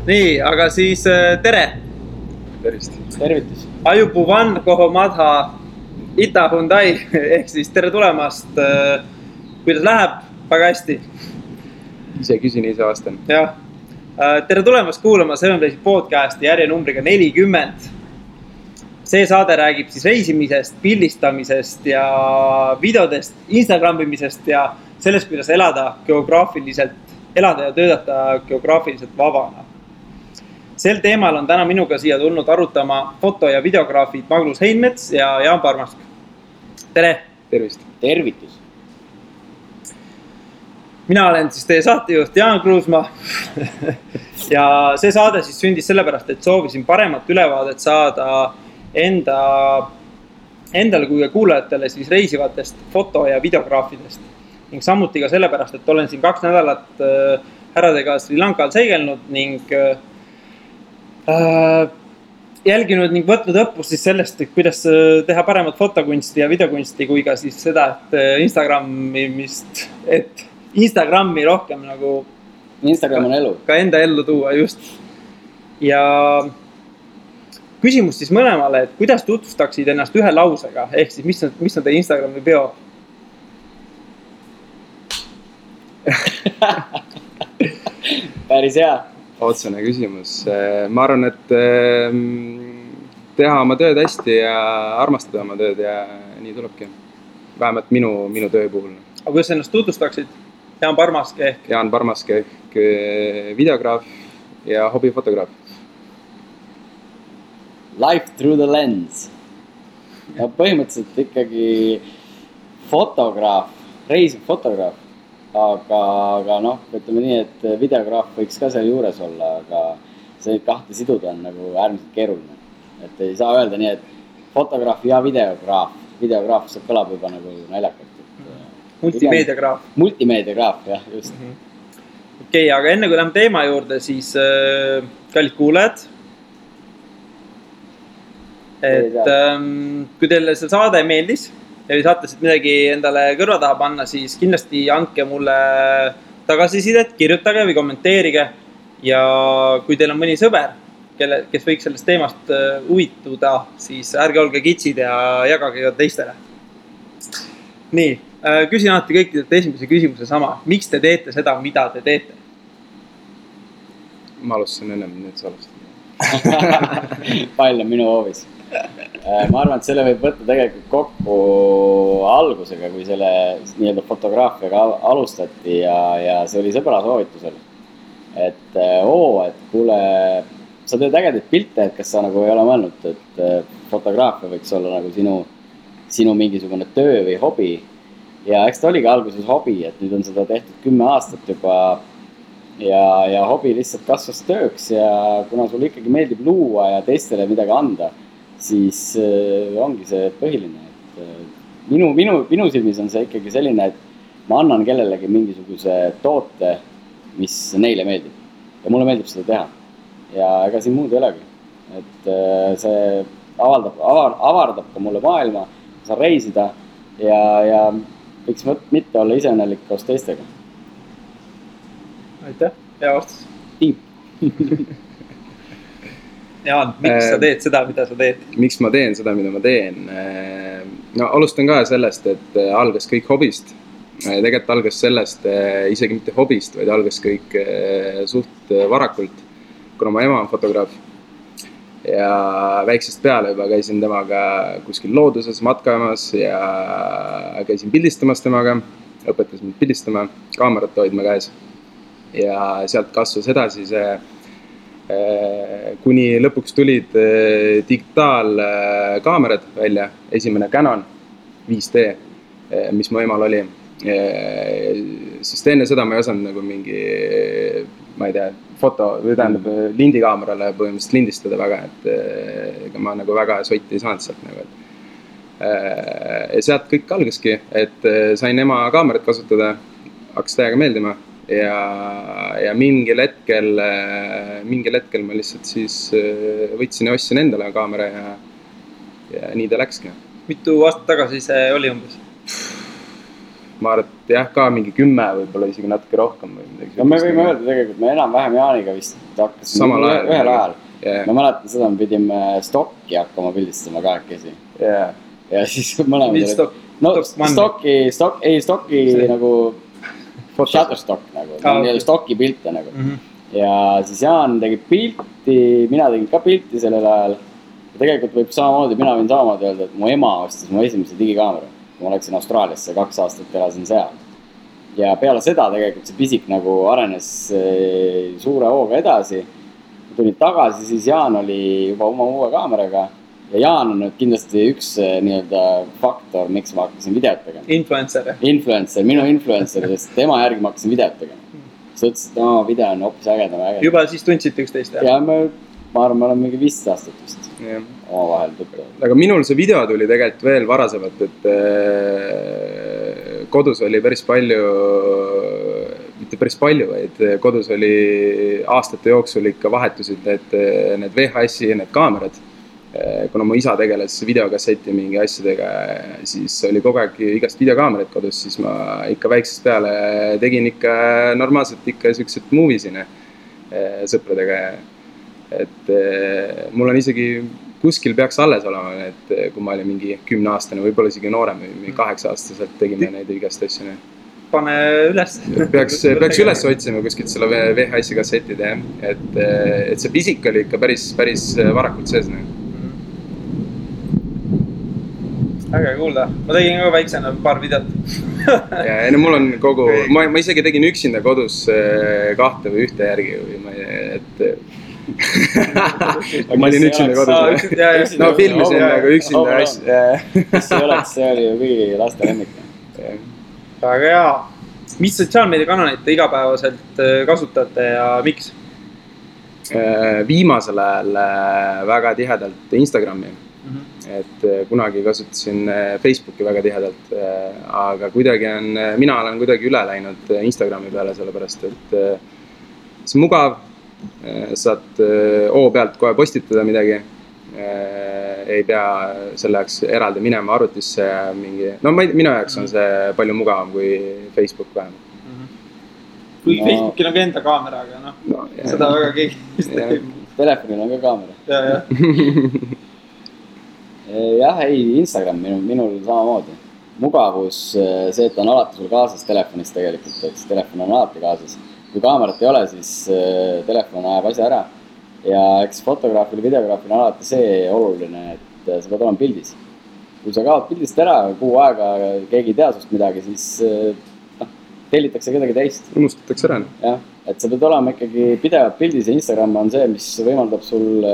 Nii, aga siis tere! Tervist! Tervitus! Ajupuvan Kohomadha Ita Hyundai ehk siis tere tulemast. Kuidas läheb? Väga hästi. Ise küsin, ise vastan. Jah. Tere tulemast kuulama Sevenplace'i podcasti järjenumbriga 40. See saade räägib siis reisimisest, pildistamisest ja videodest, Instagramimisest ja sellest, kuidas elada ja töötada geograafiliselt vabana. Sel teemal on täna minuga siia tulnud arutama foto- ja videograafid Magnus Heinmets ja Jaan Parmask. Tere! Tervist! Tervitus! Mina olen siis teie saatejuht Jaan Kruusmaa ja see saade siis sündis sellepärast, et soovisin paremat ülevaadet saada endale kui kuulajatele siis reisivatest foto- ja videograafidest. Ning samuti ka sellepärast, et olen siin 2 nädalat härradega Sri Lankal seigelnud ning jälginud ning võtnud õppust siis sellest, et kuidas teha paremat fotokunsti ja videokunsti, kui ka siis seda, et Instagrami rohkem nagu Instagram on elu. Ka enda ellu tuua, just. Ja küsimus siis mõlemale, et kuidas tutvustaksid ennast ühe lausega, ehk siis mis on teie Instagrami bio? Päris hea. Otsene küsimus. Ma arvan, et teha oma tööd hästi ja armastada oma tööd ja nii tulebki. Vähemalt minu töö puhul. Aga kuidas ennast tutvustaksid? Jaan Parmask ehk videograaf ja hobifotograaf. Life through the lens. Ja põhimõtteliselt ikkagi fotograaf, reisiv fotograaf. Aga ütleme nii, et videograaf võiks ka seal juures olla, aga see kahte siduda on nagu äärmiselt keeruline. Et ei saa öelda nii, et fotograaf ja videograaf. Videograaf see kõlab juba nagu naljakalt. Multimeediagraaf. Multimeediagraaf, jah, just. Okei, aga enne kui lähme teema juurde, siis kallid kuulajad. Et kui teile see saade meeldis ja saate siit midagi endale kõrva taha panna, siis kindlasti andke mulle tagasisidet, kirjutage või kommenteerige. Ja kui teil on mõni sõber, kes võiks sellest teemast huvituda, siis ärge olge kitsid ja jagage ka teistele. Nii, küsin alati kõikidelt esimese küsimuse sama. Miks te teete seda, mida te teete? Ma alustasin ennem, nüüd sa alustasin. Pall on minu hoovis. Ma arvan, et selle võib võtta tegelikult kokku algusega, kui selle nii-öelda fotograafiaga alustati ja see oli sõbra soovitusel. Et kuule, sa teed ägedaid pilte, et kas sa nagu ei ole mõelnud, et fotograafia võiks olla nagu sinu mingisugune töö või hobi. Ja eks ta oligi alguses hobi, et nüüd on seda tehtud 10 aastat juba ja hobi lihtsalt kasvas tööks ja kuna sul ikkagi meeldib luua ja teistele midagi anda, siis ongi see põhiline, et minu silmis on see ikkagi selline, et ma annan kellelegi mingisuguse toote, mis neile meeldib ja mulle meeldib seda teha ja ega siin muud ei olegi, et see avardab ka mulle maailma, saan reisida ja võiks mitte olla iseõnnelik koos teistega. Aitäh, hea vastus. Tiip. Jaan, miks sa teed seda, mida sa teed? Miks ma teen seda, mida ma teen? No alustan ka sellest, et algas kõik hobist. Tegelikult algas sellest isegi mitte hobist, vaid algas kõik suht varakult, kuna ma ema on fotograaf. Ja väiksest peale juba käisin temaga kuskil looduses matkamas ja käisin pildistamas temaga, õpetas mind pildistama, kaamerat hoidma käes. Ja sealt kasvas edasi see kuni lõpuks tulid digitaalkaamerad välja, esimene Canon 5D, mis mu emal oli. Sest enne seda ma ei osanud nagu mingi, ma ei tea, lindikaamerale põhimõtteliselt lindistada väga, et ma nagu väga sotti ei saanud sealt nagu. Ja sealt kõik algaski, et sain ema kaamerat kasutada, hakkas täiega meeldima. Ja mingil hetkel ma lihtsalt siis võtsin ja ostsin endale kaamera ja nii ta läkski. Mitu aastat tagasi see oli umbes? ma arvan, et jah, ka mingi 10 võib-olla isegi natuke rohkem või midagi. No me võime öelda tegelikult, me enam-vähem Jaaniga vist hakkasime ühel ajal. Ma mäletan seda, me pidime stokki hakkama pildistama kahekesi. Ja siis mõlemad stokki nagu Shutterstock nagu, stokki pilte nagu. Ja siis Jaan tegi pilti, mina tegin ka pilti sellel ajal. Ja tegelikult võib samamoodi, mina võin samamoodi öelda, et mu ema ostis mu esimese digikaamera. Ma läksin Austraaliasse, 2 aastat elasin seal. Ja peale seda tegelikult see pisik nagu arenes suure hooga edasi. Tulin tagasi, siis Jaan oli juba oma uue kaameraga. Ja Jaan on nüüd kindlasti üks nii-öelda faktor, miks ma hakkasin videot tegema. Influencer, minu influencer, sest tema järgi ma hakkasin videot tegema. Sa ütlesid, et oma video on hoopis ägedam. Juba siis tundsite üksteist? Ja ma arvan, me oleme mingi 15 aastat vist oma vahel tuttav. Aga minul see video tuli tegelikult veel varasemalt, et kodus oli päris palju, mitte päris palju, vaid kodus oli aastate jooksul ikka vahetusid need VHS-i ja need kaamerad. Kuna mu isa tegeles videokasseti mingi asjadega, siis oli kogu aeg igast videokaamerat kodus, siis ma ikka väiksest peale tegin ikka normaalselt ikka siuksed moviesine sõpradega. Et mul on isegi kuskil peaks alles olema, et kui ma olin mingi 10-aastane, võib-olla isegi noorem või 8-aastaselt tegime neid igast asju. Pane üles. Peaks üles otsima kuskilt selle VHS-i kassetid, et see pisik oli ikka päris varakult sees. Äge kuulda. Ma tegin ka väiksena paar videot. Ja mul on kogu, ma isegi tegin üksinda kodus 2 või 1 järgi või ma olin üksinda kodus. No filmisin nagu üksinda asja. Mis see oleks, see oli ju kõigi laste lemmik. Väga hea. Mis sotsiaalmeediakanaleid te igapäevaselt kasutate ja miks? Viimasel ajal väga tihedalt Instagrami. Et kunagi kasutasin Facebooki väga tihedalt, aga mina olen kuidagi üle läinud Instagrami peale, sellepärast et see mugav, saad pealt kohe postitada midagi, ei pea selle jaoks eraldi minema arvutisse ja mingi, minu jaoks on see palju mugavam kui Facebook vähemalt. Kui Facebookil on ka enda kaamera, aga seda väga keegi. Telefonil on ka kaamera. Jah, Instagram minul samamoodi. Mugavus, see, et on alati sul kaasas telefonis tegelikult, et telefon on alati kaasas. Kui kaamerat ei ole, siis telefon ajab asja ära. Ja eks fotograafil ja videograafil on alati see oluline, et sa pead olema pildis. Kui sa kaod pildist ära, kuu aega keegi ei tea sust midagi, siis tellitakse kedagi teist. Unustatakse ära. Jah, et sa pead olema ikkagi pidevalt pildis ja Instagram on see, mis võimaldab sul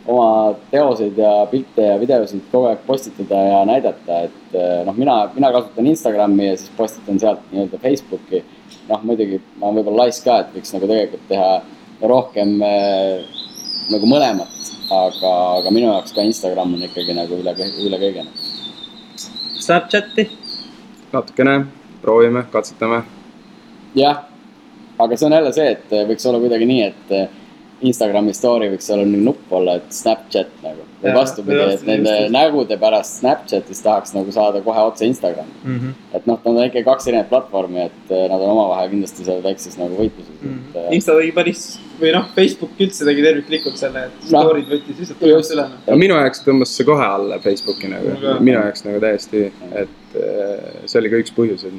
oma teoseid ja pilte ja videosid kogu aeg postitada ja näidata, et mina kasutan Instagrami ja siis postitan sealt nii-öelda Facebooki. Muidugi ma olen võib-olla laisk ka, et võiks nagu tegelikult teha rohkem nagu mõlemat, aga minu jaoks ka Instagram on ikkagi nagu üle kõige. Snapchati? Natukene, proovime, katsetame. Jah, aga see on jälle see, et võiks olla kuidagi nii, et Instagrami story võiks olla nüüd nupp olla, et Snapchat nagu. Või vastupidi, et nende nägude pärast Snapchatis tahaks nagu saada kohe otse Instagrami. Et nad on ikka 2 erinevat platvormi, et nad on omavahel kindlasti seal väikses nagu võitluses. Insta tegi päris, või Facebook üldse tegi terviklikult selle, et story'd võttis lihtsalt tõmmast üle. Minu jaoks tõmbas see kohe alla Facebooki nagu. Minu jaoks nagu täiesti, et see oli ka üks põhjus, et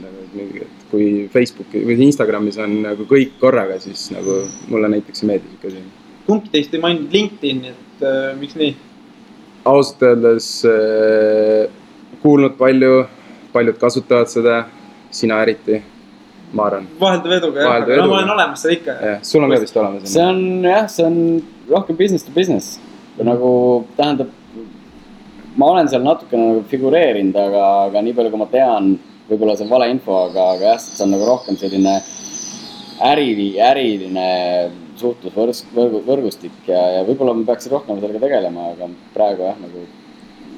kui Facebooki või Instagramis on nagu kõik korraga, siis nagu mulle näiteks ei meeldi siuke siin. Kumbki teist ei maininud LinkedIn, et miks nii? Ausalt öeldes kuulnud paljud kasutavad seda, sina eriti, ma arvan. Vaheldav eduga, jah, aga ma olen olemas seda ikka. Sul on ka vist olemas. See on rohkem business to business. Nagu tähendab, ma olen seal natukene nagu figureerinud, aga nii palju kui ma tean, võib-olla see on vale info, aga jah, see on nagu rohkem selline äriline suhtlusvõrgustik ja võib-olla me peaksid rohkem sellega tegelema, aga praegu jah, nagu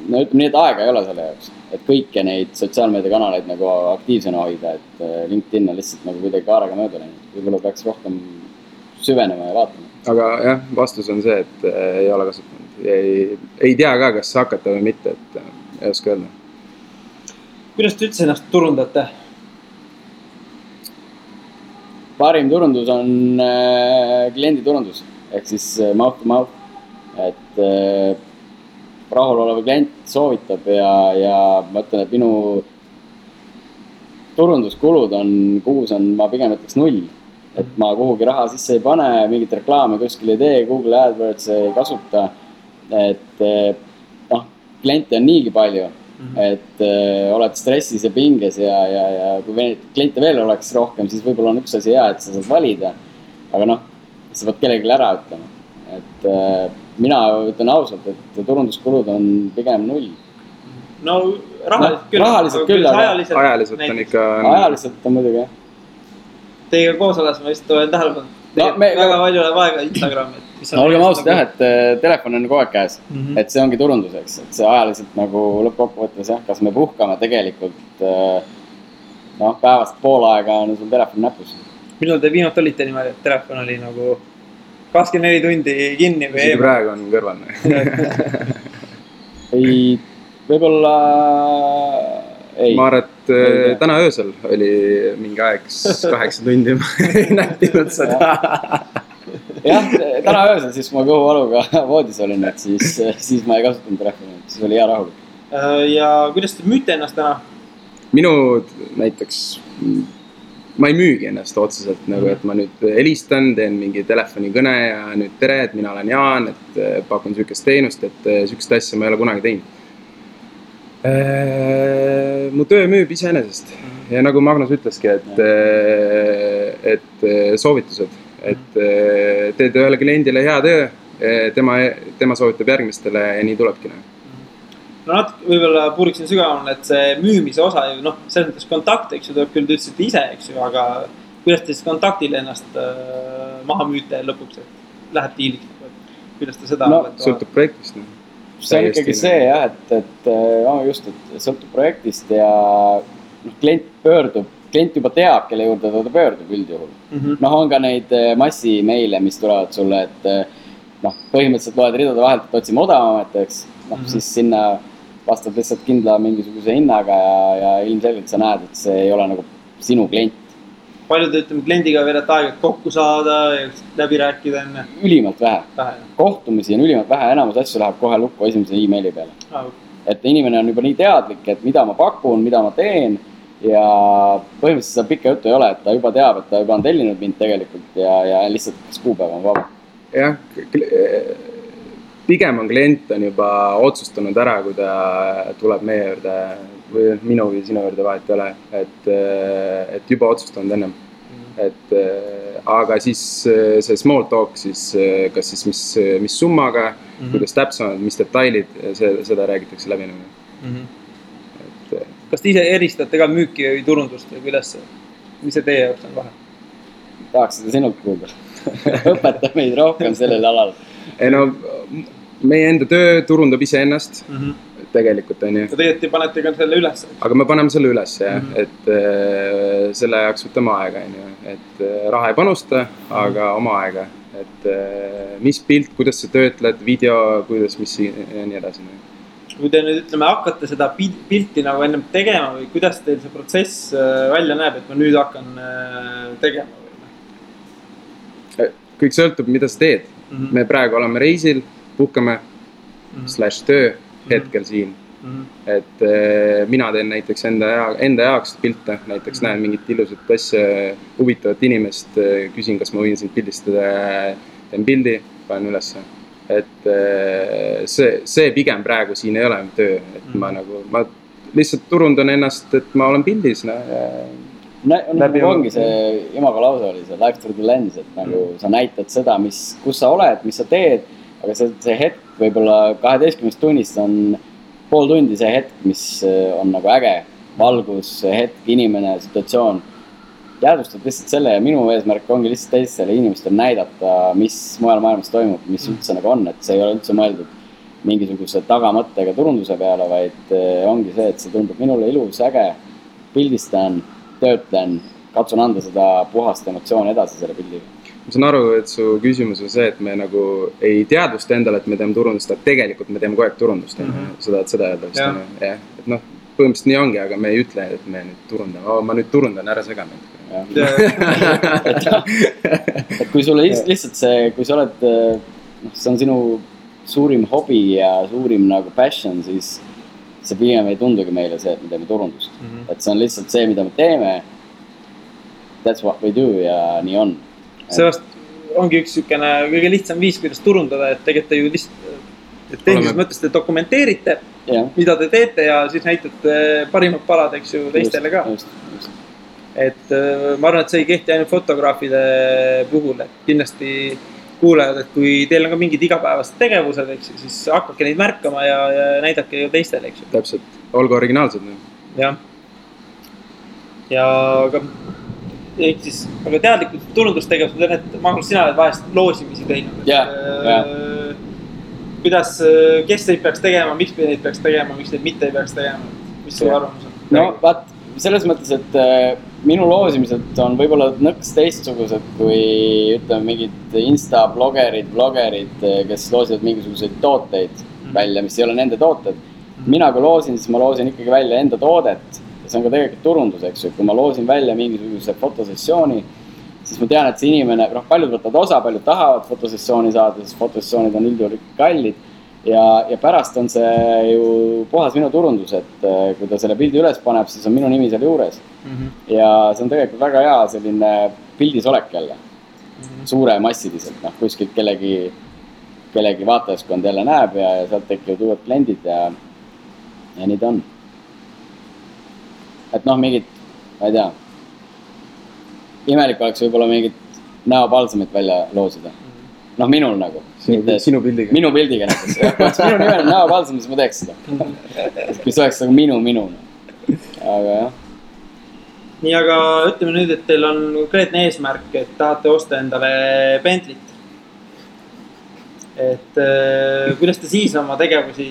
ütleme nii, et aega ei ole selle jaoks, et kõiki neid sotsiaalmeediakanaleid nagu aktiivsena hoida, et LinkedIn on lihtsalt nagu kuidagi kaarega mööda läinud, võib-olla peaks rohkem süvenema ja vaatama. Aga jah, vastus on see, et ei ole kasutanud, ei tea ka, kas hakata või mitte, et ei oska öelda. Kuidas te üldse ennast turundate? parim turundus on klienditurundus ehk siis mouth to mouth, et rahulolev klient soovitab ja ma ütlen, et minu turunduskulud kuus on, ma pigem ütleks 0. Et ma kuhugi raha sisse ei pane, mingit reklaame kuskil ei tee, Google AdWords ei kasuta. Et kliente on niigi palju, et oled stressis ja pinges ja kui kliente veel oleks rohkem, siis võib-olla on üks asi hea, et sa saad valida. Aga sa pead kellelegi ära ütlema. Et mina ütlen ausalt, et turunduskulud on pigem 0. No rahaliselt küll, aga ajaliselt on ikka... Ajaliselt on muidugi, jah. Teiega koos oles ma vist olen tähelepanu. Väga palju läheb aega Instagrami. Olgem ausalt jah, et telefon on kogu aeg käes. Et see ongi turunduseks. Et see ajaliselt nagu lõppkokkuvõttes jah, kas me puhkame tegelikult päevast pool aega on sul telefon näpus. Millal te viimati olite niimoodi, et telefon oli nagu 24 tundi kinni või eemal? Praegu on kõrval. Ei, võib-olla ei. Ma arvan, et täna öösel oli mingi aeg 8 tundi ei nähtinud seda. Jah, täna öösel, siis ma kõhuvaluga voodis olin, et siis ma ei kasutanud telefoni, siis oli hea rahulik. Ja kuidas te müüte ennast täna? Minu näiteks, ma ei müügi ennast otseselt, nagu, et ma nüüd helistan, teen mingi telefonikõne ja nüüd tere, et mina olen Jaan, et pakun sükest teenust, et sükest asja ma ei ole kunagi teinud. Mu töö müüb iseenesest ja nagu Magnus ütleski, et soovitused, et teed ühele kliendile hea töö, tema soovitab järgmistele ja nii tulebki. No natuke võib-olla puuriksin sügavamale, et see müümise osa ju, selles mõttes kontakte, eks ju, tuleb küll tõtsite ise, eks ju, aga kuidas te siis kontaktile ennast maha müüte lõpuks, et läheb diiliks, kuidas te seda... Sõltub projektist. See on ikkagi see jah, et sõltub projektist ja klient juba teab, kelle juurde ta pöördub üldjuhul. On ka neid massimeile, mis tulevad sulle, et põhimõtteliselt loed ridade vahelt, et otsime odavamat, eks. Siis sinna vastab lihtsalt kindla mingisuguse hinnaga ja ilmselgelt sa näed, et see ei ole nagu sinu klient. Palju te kliendiga veedate aega kokku saada ja läbi rääkida enne? Ülimalt vähe. Kohtumisi on ülimalt vähe, enamus asju läheb kohe lukku esimese e-maili peale. Et inimene on juba nii teadlik, et mida ma pakun, mida ma teen ja põhimõtteliselt seda pikka juttu ei ole, et ta juba teab, et ta juba on tellinud mind tegelikult ja lihtsalt kas kuupäev on vaba. Jah, pigem on klient on juba otsustanud ära, kui ta tuleb meie juurde või minu või sinu juurde vahet ei ole, et juba otsustanud ennem. Aga siis see small talk, siis kas siis mis summaga, kuidas täpsemad, mis detailid, seda räägitakse läbi. Kas te ise eristate ka müüki või turundust või kuidas see, mis see teie jaoks on vahe? Tahaks seda sinult kuulda. Õpeta meid rohkem sellel alal. Meie enda töö turundab ise ennast. Tegelikult on ju. Ja tegelikult panete ka selle üles. Aga me paneme selle üles, jah. Et selle jaoks võtame aega, et raha ei panusta, aga oma aega. Et mis pilt, kuidas sa töötled, video, kuidas, mis ja nii edasi. Kui te nüüd ütleme, hakkate seda pilti nagu ennem tegema või kuidas teil see protsess välja näeb, et ma nüüd hakkan tegema? Kõik sõltub, mida sa teed. Me praegu oleme reisil, puhkame /töö hetkel siin. Et mina teen näiteks enda jaoks pilte, näiteks näen mingit ilusat asja, huvitavat inimest, küsin, kas ma võin sind pildistada, teen pildi, panen ülesse. Et see pigem praegu siin ei ole töö, et ma lihtsalt turundan ennast, et ma olen pildis. Ongi see imago lause oli see life through the lens, et nagu sa näitad seda, kus sa oled, mis sa teed, aga see hetk võib-olla 12 tunnist on pool tundi see hetk, mis on nagu äge, valgus, hetk, inimene, situatsioon. Jäädvustad lihtsalt selle ja minu eesmärk ongi lihtsalt teistele inimestele näidata, mis mujal maailmas toimub, mis üldse nagu on, et see ei ole üldse mõeldud mingisuguse tagamõttega turunduse peale, vaid ongi see, et see tundub minule ilus, äge, pildistan, töötlen, katsun anda seda puhast emotsiooni edasi selle pildiga. Ma saan aru, et su küsimus on see, et me nagu ei teadvusta endale, et me teeme turundust, aga tegelikult me teeme kogu aeg turundust. Seda öelda vist. Et põhimõtteliselt nii ongi, aga me ei ütle, et me nüüd turundame. Ma nüüd turundan, ära sega mind. et kui sulle lihtsalt see, kui sa oled, see on sinu suurim hobi ja suurim nagu passion, siis see pigem ei tundugi meile see, et me teeme turundust. Et see on lihtsalt see, mida me teeme. That's what we do ja nii on. Sellest ongi üks sükene kõige lihtsam viis, kuidas turundada, et tegelikult te ju lihtsalt, et tehnilises mõttes te dokumenteerite, mida te teete ja siis näitate parimad palad, eks ju, teistele ka. Just. Et ma arvan, et see ei kehti ainult fotograafide puhul, et kindlasti kuulajad, et kui teil on ka mingid igapäevased tegevused, eks ju, siis hakkake neid märkama ja näidake ju teistele, eks ju. Täpselt, olgu originaalsed. Jah. Ja aga teadlikud turundustegevused on, et Magnus, sina oled vahest loosimisi teinud. Kuidas, kes neid peaks tegema, miks neid peaks tegema, miks neid mitte ei peaks tegema, mis su arvamus on? No vaat, selles mõttes, et minu loosimised on võib-olla nõks teistsugused kui ütleme mingid Insta-blogerid, kes loosivad mingisuguseid tooteid välja, mis ei ole nende tooted. Mina kui loosin, siis ma loosin ikkagi välja enda toodet ja see on ka tegelikult turundus, eks ju. Kui ma loosin välja mingisuguse fotosessiooni, siis ma tean, et see inimene, paljud võtavad osa, paljud tahavad fotosessiooni saada, sest fotosessioonid on üldjuhul kallid. Ja pärast on see ju puhas minu turundus, et kui ta selle pildi üles paneb, siis on minu nimi seal juures. Ja see on tegelikult väga hea selline pildis olek jälle. Suure massiliselt, kuskilt kellegi vaatajaskond jälle näeb ja sealt tekivad uued kliendid ja nii ta on. Et mingid, ma ei tea, imelik oleks võib-olla mingit näopalsamit välja loosida. Minul nagu. Sinu pildiga. Minu pildiga näiteks. Minu nimel on näopalsam, siis ma teeks seda. Kui see oleks nagu minu. Aga jah. Nii, aga ütleme nüüd, et teil on konkreetne eesmärk, et tahate osta endale Bentley't. Et kuidas te siis oma tegevusi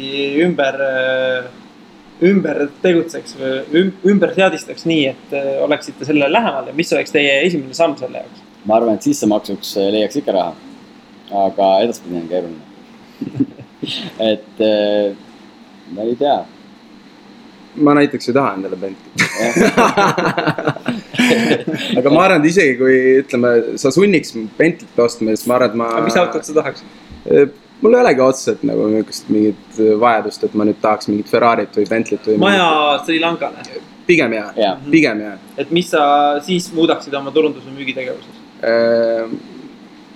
ümber tegutseks või ümber seadistaks nii, et oleksite sellele lähemal ja mis oleks teie esimene samm selle jaoks? Ma arvan, et sissemaksuks leiaks ikka raha. Aga edaspidi on keeruline. Et ma ei tea. Ma näiteks ei taha endale Bentley. Aga ma arvan, et isegi kui ütleme, sa sunniks Bentley't ostma, siis ma arvan, et ma... Aga mis autot sa tahaks? Mul ei olegi otseselt nagu mingit vajadust, et ma nüüd tahaks mingit Ferrarit või Bentley't või... Maja Sri Lankale? Pigem jah. Et mis sa siis muudaksid oma turundus- või müügitegevuses?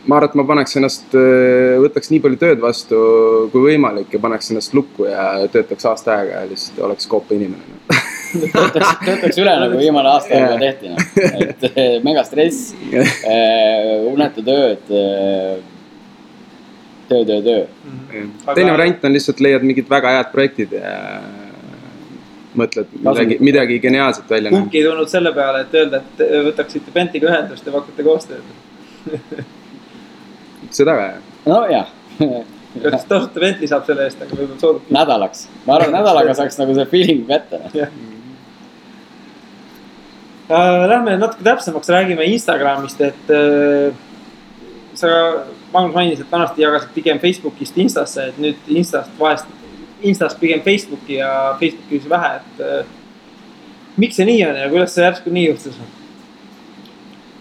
Ma arvan, et ma paneks ennast, võtaks nii palju tööd vastu kui võimalik ja paneks ennast lukku ja töötaks aasta aega ja lihtsalt oleks koopa inimene. Töötaks üle nagu viimane aasta aega tehti. Et mega stress, unetu tööd, töö. Teine variant on lihtsalt leiad mingid väga head projektid ja mõtled midagi geniaalset välja. Kumbki ei tulnud selle peale, et öelda, et võtaksite Bentley'ga ühendust ja pakkute koostööd. Seda ka, jah. No jah. Kas tasuta Bentley saab selle eest, aga võib-olla soodub. Nädalaks. Ma arvan, nädalaga saaks nagu see feeling kätte. Lähme natuke täpsemaks, räägime Instagramist, et sa, Magnus mainis, et vanasti jagasid pigem Facebookist Instasse, et nüüd Instast pigem Facebooki ja Facebooki vähe, et miks see nii on ja kuidas see järsku nii juhtus?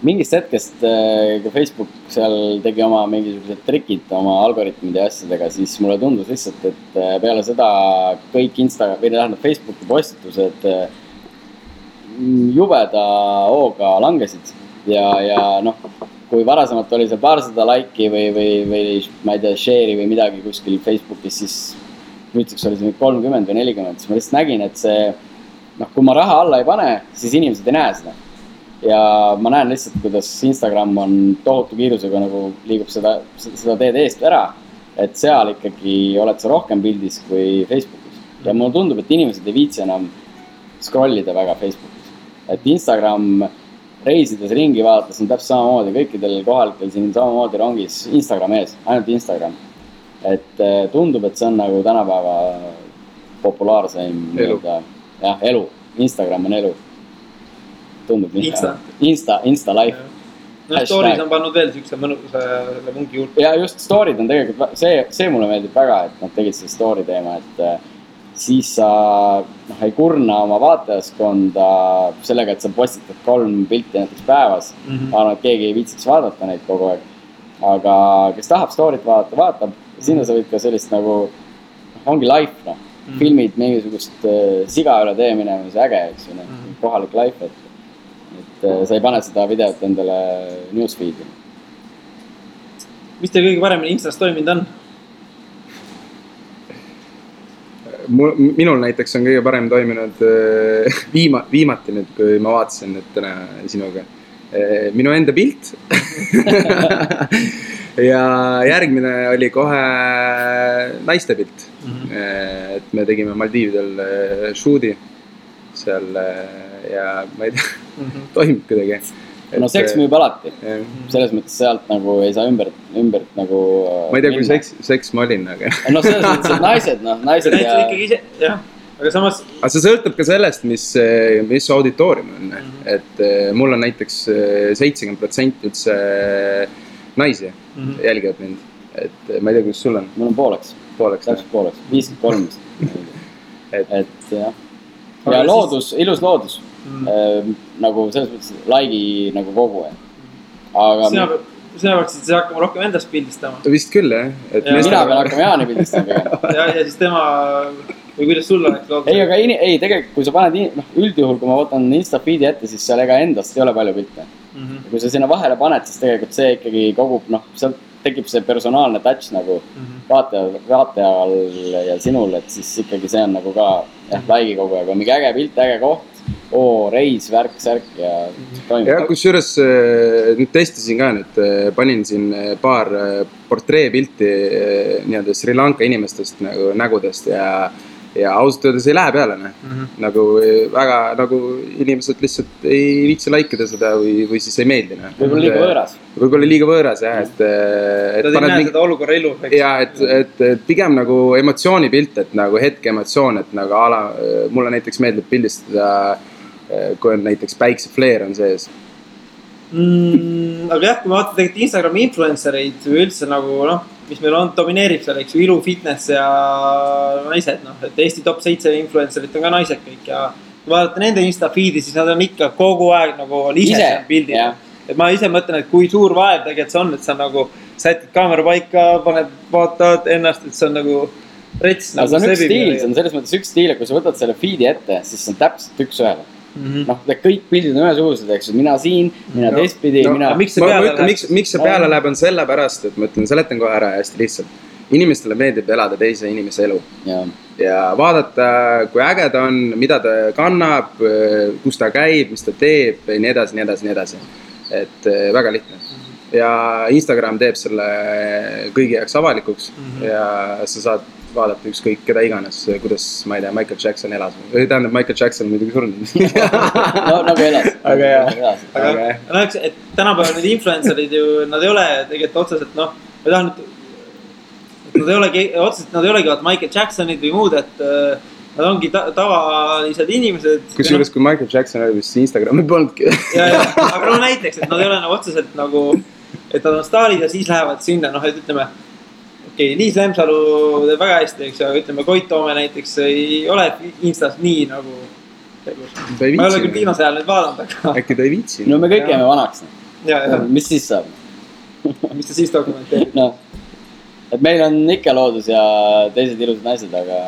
Mingist hetkest, kui Facebook seal tegi oma mingisugused trikid oma algoritmide ja asjadega, siis mulle tundus lihtsalt, et peale seda kõik Facebooki postitused jubeda hooga langesid ja kui varasemalt oli see paarsada laiki või ma ei tea, share'i või midagi kuskil Facebookis, siis nüüdseks oli see 30 või 40, siis ma lihtsalt nägin, et see, kui ma raha alla ei pane, siis inimesed ei näe seda. Ja ma näen lihtsalt, kuidas Instagram on tohutu kiirusega nagu liigub seda teed eest ära, et seal ikkagi oled sa rohkem pildis kui Facebookis. Ja mulle tundub, et inimesed ei viitsi enam scrollida väga Facebookis. Et Instagram reisides ringi vaadates on täpselt samamoodi, kõikidel kohalikel siin samamoodi rongis Instagram ees, ainult Instagram. Et tundub, et see on nagu tänapäeva populaarseim elu. Instagram on elu. Tundub Insta life. Stories on pannud veel siukse mõnusa mungi juurde. Ja just story'd on tegelikult, see mulle meeldib väga, et nad tegid see story teema, et siis sa ei kurna oma vaatajaskonda sellega, et sa postitad 3 pilti näiteks päevas. Ma arvan, et keegi ei viitsiks vaadata neid kogu aeg. Aga kes tahab story't vaadata, vaatab. Sinna sa võid ka sellist nagu, ongi life, filmid mingisugust siga üle tee minema, see äge, eks ju, kohalik life, et sa ei pane seda videot endale newsfeed'i. Mis teil kõige paremini Instas toiminud on? Minul näiteks on kõige parem toiminud viimati nüüd, kui ma vaatasin nüüd täna sinuga. Minu enda pilt. Ja järgmine oli kohe naiste pilt. Et me tegime Maldiividel shoot'i seal ja ma ei tea, toimib kuidagi. No seks müüb alati. Selles mõttes sealt nagu ei saa ümbert nagu... Ma ei tea, kui seks ma olin, aga... No selles mõttes, et naised ja... Ikkagi ise, jah. Aga samas... Aga see sõltub ka sellest, mis auditoorium on. Et mul on näiteks 70% üldse naisi jälgivad mind. Et ma ei tea, kus sul on. Mul on pooleks. Täpselt pooleks. 53. Et jah. Ja loodus, ilus loodus. Nagu selles mõttes laigi nagu kogu aeg. Aga sina võiksid see hakkama rohkem endast pildistama. Vist küll, jah. Mina pean hakkama Jaani pildistama. Ja siis tema, või kuidas sul oleks loodus? Ei, aga tegelikult kui sa paned, üldjuhul kui ma võtan Insta feed'i ette, siis seal ega endast ei ole palju pilte. Kui sa sinna vahele paned, siis tegelikult see ikkagi kogub, seal tekib see personaalne touch nagu vaatajal ja sinul, et siis ikkagi see on nagu ka laigi kogu aeg. On mingi äge pilt, äge koht. Reis, värk, särk ja toimib. Ja kusjuures nüüd testisin ka nüüd, panin siin paar portreepilti nii-öelda Sri Lanka inimestest nagu nägudest ja ausalt öeldes ei lähe peale. Nagu väga nagu inimesed lihtsalt ei viitsi laikida seda või siis ei meeldi. Võib-olla liiga võõras. Võib-olla liiga võõras, jah. Nad ei näe seda olukorra ilu. Ja, et pigem nagu emotsioonipilt, et nagu hetke emotsioon, et nagu mulle näiteks meeldib pildistada, kui on näiteks päiksefleer on sees. Aga jah, kui ma vaatan tegelikult Instagrami influencereid või üldse nagu, mis meil on, domineerib seal, eks ju, ilu, fitness ja naised, et Eesti top 7 influencerit on ka naised kõik ja kui vaadata nende Insta feed'i, siis nad on ikka kogu aeg nagu ise seal pildid. Et ma ise mõtlen, et kui suur vaev tegelikult see on, et sa nagu sätid kaamera paika, vaatad ennast, et see on nagu rets. See on üks stiil, see on selles mõttes üks stiil, et kui sa võtad selle feed'i ette, siis see on täpselt üks ühele. Kõik pildid on ühesugused, eks mina siin, mina teistpidi, mina... Miks see peale läheb on selle pärast, et ma ütlen, seletan kohe ära hästi lihtsalt. Inimestele meeldib elada teise inimese elu. Ja vaadata, kui äge ta on, mida ta kannab, kus ta käib, mis ta teeb, nii edasi. Et väga lihtne. Ja Instagram teeb selle kõigi jaoks avalikuks ja sa saad vaadata ükskõik keda iganes, kuidas, ma ei tea, Michael Jackson elas. Tähendab, Michael Jackson muidugi surnud. Nagu elas. Aga jah. Aga et tänapäeval need influencerid ju, nad ei ole tegelikult otseselt, ma tahan, et nad ei olegi Michael Jacksonid või muud, et nad ongi tavalised inimesed. Kusjuures kui Michael Jackson oli, siis Instagrami polnudki. Aga näiteks, et nad ei ole otseselt nagu, et nad on staarid ja siis lähevad sinna, et ütleme, Liis Lemsalu teeb väga hästi, eks, aga ütleme, Koit Toome näiteks ei ole Instas nii nagu ma ei ole küll viimase ajal nüüd vaadanud, aga... Äkki ta ei viitsi. No me kõik jääme vanaks. Mis siis saab? Mis ta siis dokumenteerib? Et meil on ikka loodus ja teised ilusad naised, aga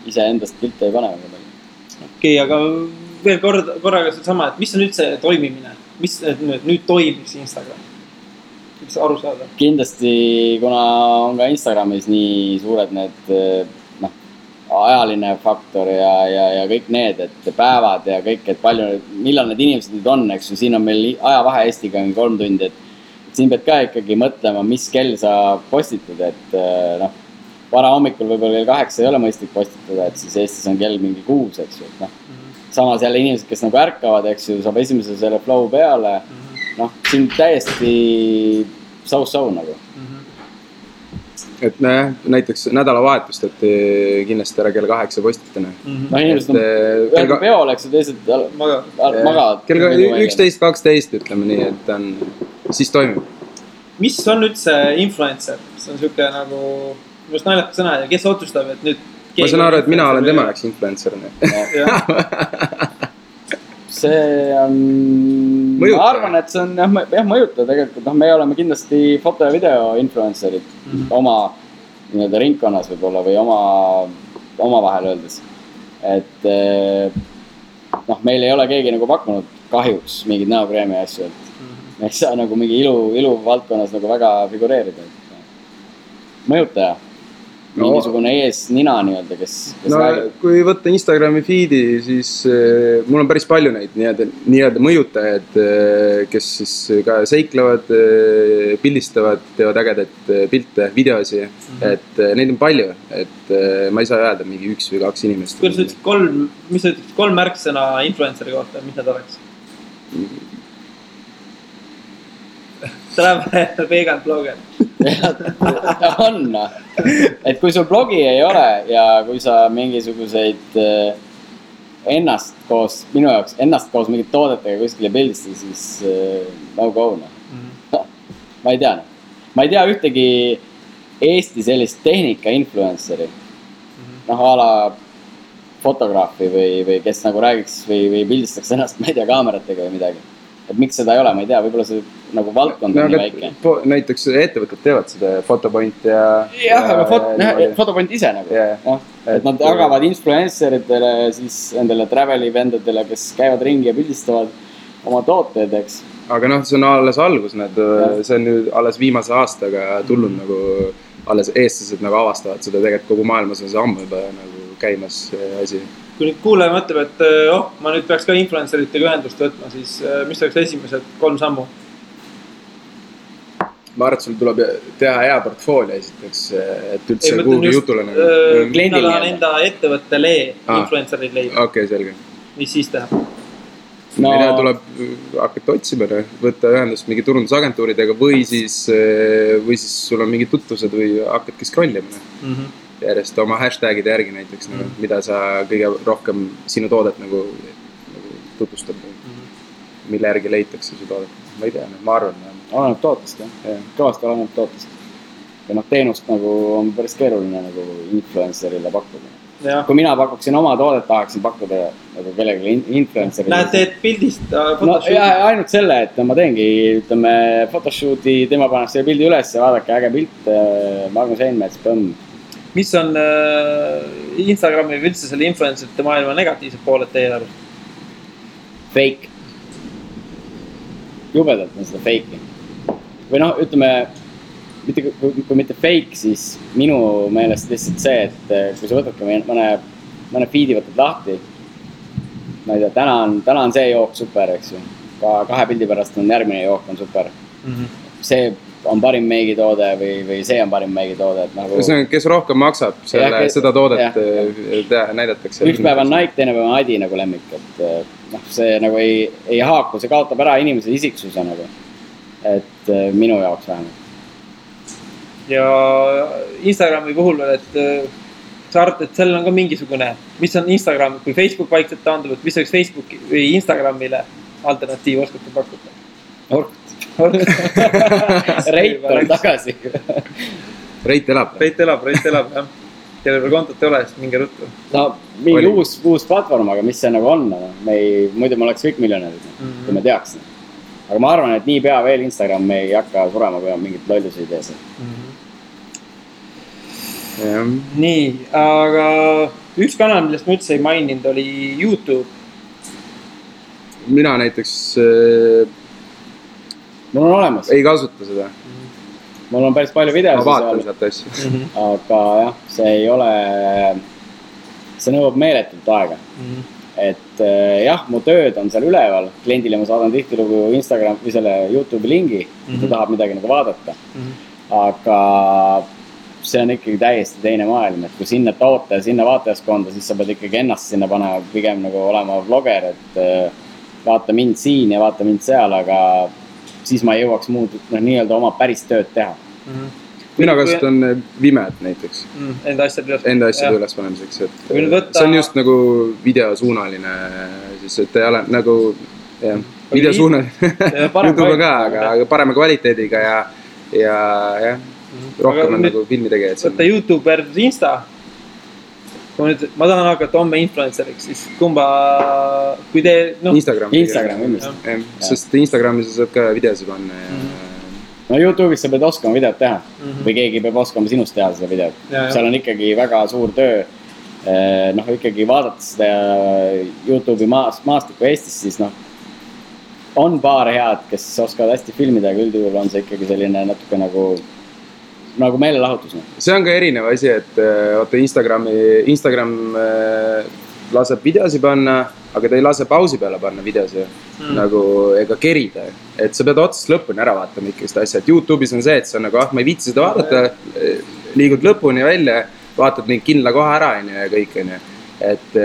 ise endast pilte ei pane. Okei, aga veel korraga sama, et mis on üldse toimimine? Mis nüüd toimiks Instagram? Mis aru saada? Kindlasti, kuna on ka Instagramis nii suured need ajaline faktor ja kõik need, et päevad ja kõik, et palju, millal need inimesed nüüd on, eks ju, siin on meil ajavahe Eestiga 3 tundi, et siin pead ka ikkagi mõtlema, mis kell sa postitad, et vara hommikul võib-olla kell 8 ei ole mõistlik postitada, et siis Eestis on kell mingi 6, eks ju, et samas jälle inimesed, kes nagu ärkavad, eks ju, saab esimese selle flow peale, siin täiesti so-so nagu. Et näiteks nädalavahetust, et kindlasti ära kell 8 postitane. Inimesed on ühel peol, eks ju, teised magavad. Kell 11-12 ütleme nii, et siis toimib. Mis on üldse influencer? See on siuke nagu, just naljakas sõna ja kes otsustab, et nüüd ma saan aru, et mina olen tema jaoks influencer. See on, ma arvan, et see on jah mõjuta tegelikult, me oleme kindlasti foto ja video influencerid oma nii-öelda ringkonnas võib-olla või oma vahel öeldes. Et meil ei ole keegi nagu pakkunud kahjuks mingid näokreemi asju, et me ei saa nagu mingi ilu valdkonnas nagu väga figureerida. Mõjutaja. Mingisugune ees nina nii-öelda, kes räägib. Kui võtta Instagrami feedi, siis mul on päris palju neid nii-öelda mõjutajad, kes siis ka seiklevad, pildistavad, teevad ägedat pilte, videosi, et neid on palju, et ma ei saa öelda mingi 1 või 2 inimest. Kuidas ütlesid mis sa ütlesid 3 märksõna influenceri kohta, mis need oleks? Ta läheb vegan blogger. On, et kui sul blogi ei ole ja kui sa mingisuguseid ennast koos mingit toodetega kuskile pildistada, siis no go. Ma ei tea ühtegi Eesti sellist tehnika influenceri, a la fotograafi või kes nagu räägiks või pildistaks ennast, ma ei tea, kaameratega või midagi. Et miks seda ei ole, ma ei tea, võib-olla see nagu valdkond on nii väike. Näiteks ettevõtted teevad seda Fotopoint ja... Jah, aga Fotopoint ise nagu. Et nad jagavad influenceritele, siis endale traveli vendadele, kes käivad ringi ja pildistavad oma tooteid, eks. Aga see on alles algus, see on nüüd alles viimase aastaga tulnud nagu alles eestlased nagu avastavad seda, tegelikult kogu maailmas on see ammu juba nagu käimas asi. Kui nüüd kuulaja mõtleb, et ma nüüd peaks ka influenceritega ühendust võtma, siis mis oleks esimesed 3 sammu? Ma arvan, et sul tuleb teha hea portfoolio esiteks, et üldse kuhugi jutule nagu. Kliendil on enda ettevõttele influencerid leida. Okei, selge. Mis siis teha? Mida tuleb hakata otsima, võtta ühendust mingi turundusagentuuridega või siis sul on mingid tutvused või hakkadki scrollima. Järjest oma hashtagide järgi näiteks, mida sa kõige rohkem sinu toodet nagu tutvustad, mille järgi leitakse su toodet. Ma ei tea, ma arvan. Oleneb tootest, jah. Kõvasti oleneb tootest. Ja teenust nagu on päris keeruline nagu influencerile pakkuda. Kui mina pakuksin oma toodet, tahaksin pakkuda nagu kellegi influencerile. Lähed teed pildist photoshooti? No ainult selle, et ma teengi, photoshooti, tema paneb selle pildi üles ja vaadake äge pilt, Magnus Einmets, põmm. Mis on Instagrami või üldse selle influencerite maailma negatiivsed pooled teie arust? Fake. Jubedalt on seda fake'i. Või ütleme, kui mitte fake, siis minu meelest lihtsalt see, et kui sa võtadki mõne feedi võtad lahti, ma ei tea, täna on see jook super, eks ju. Ka 2 pildi pärast on järgmine jook on super. See on parim meigitoode või see on parim meigitoode. Nagu... Kes rohkem maksab seda toodet näidatakse. Üks päev on Nike, teine päev on Adi nagu lemmik. Et, see nagu ei haaku, see kaotab ära inimese isiksuse nagu. Et minu jaoks vähemalt. Ja Instagrami puhul veel, et sa arvad, et sellel on ka mingisugune, mis on Instagram, kui Facebook vaikselt taandub, et mis oleks Facebooki või Instagramile alternatiiv oskate pakkuda? Reit on tagasi. Reit elab, jah. Teile veel kontot ei ole, siis minge ruttu. No, mingi uus platvorm, aga mis see nagu on? Muidu ma oleks kõik miljonärid, kui me teaks. Aga ma arvan, et nii pea veel Instagram me ei hakka surema, kui on mingit lolluse idees. Nii, aga üks kanal, millest ma üldse ei maininud, oli YouTube. Mina näiteks... Mul on olemas. Ei kasuta seda. Mul on päris palju videosid. Ma vaatan sealt asju. Aga jah, see ei ole... See nõuab meeletult aega. Et jah, mu tööd on seal üleval. Kliendile ma saadan tihtilugu Instagram või selle YouTube'i lingi, kui tahab midagi nagu vaadata. Aga see on ikkagi täiesti teine maailm. Et kui sinna toote ja sinna vaatajaskonda, siis sa pead ikkagi ennast sinna panema pigem nagu olema vlogger. Et vaata mind siin ja vaata mind seal, aga... siis ma ei jõuaks muud nii-öelda oma päris tööd teha. Mina kasutan Vimet näiteks. Enda asjade üles panemiseks. See on just nagu videosuunaline, siis et ei ole nagu videosuunaline. YouTube on ka, aga parema kvaliteediga ja rohkem on nagu filmi tegijad. Võtta YouTube versus Insta. kui nüüd ma tahan hakata homme influenceriks, siis kumba, kui te, noh. Instagram kindlasti. Sest Instagramis saab ka videosi panna ja no YouTube'is sa pead oskama videot teha või keegi peab oskama sinust teha seda videot. Seal on ikkagi väga suur töö. Noh, ikkagi vaadates seda YouTube'i maastikku Eestis, siis noh, on paar head, kes oskavad hästi filmida, aga üldjuhul on see ikkagi selline natuke nagu meelelahutus. See on ka erinev asi, et vaata Instagram laseb videosi panna, aga ta ei lase pausi peale panna videosi nagu ega kerida. Et sa pead otsast lõpuni ära vaatama ikkagi seda asja. Et YouTube'is on see, et sa nagu, ma ei viitsi seda vaadata, liigud lõpuni välja, vaatad mingi kindla koha ära ja kõik. Et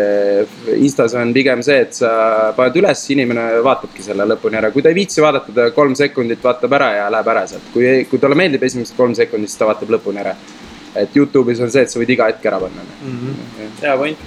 Instas on pigem see, et sa paned üles, inimene vaatabki selle lõpuni ära. Kui ta ei viitsi vaadata, ta 3 sekundit vaatab ära ja läheb ära sealt. Kui talle meeldib esimesed 3 sekundit, siis ta vaatab lõpuni ära. Et YouTube'is on see, et sa võid iga hetk ära panna. Hea point.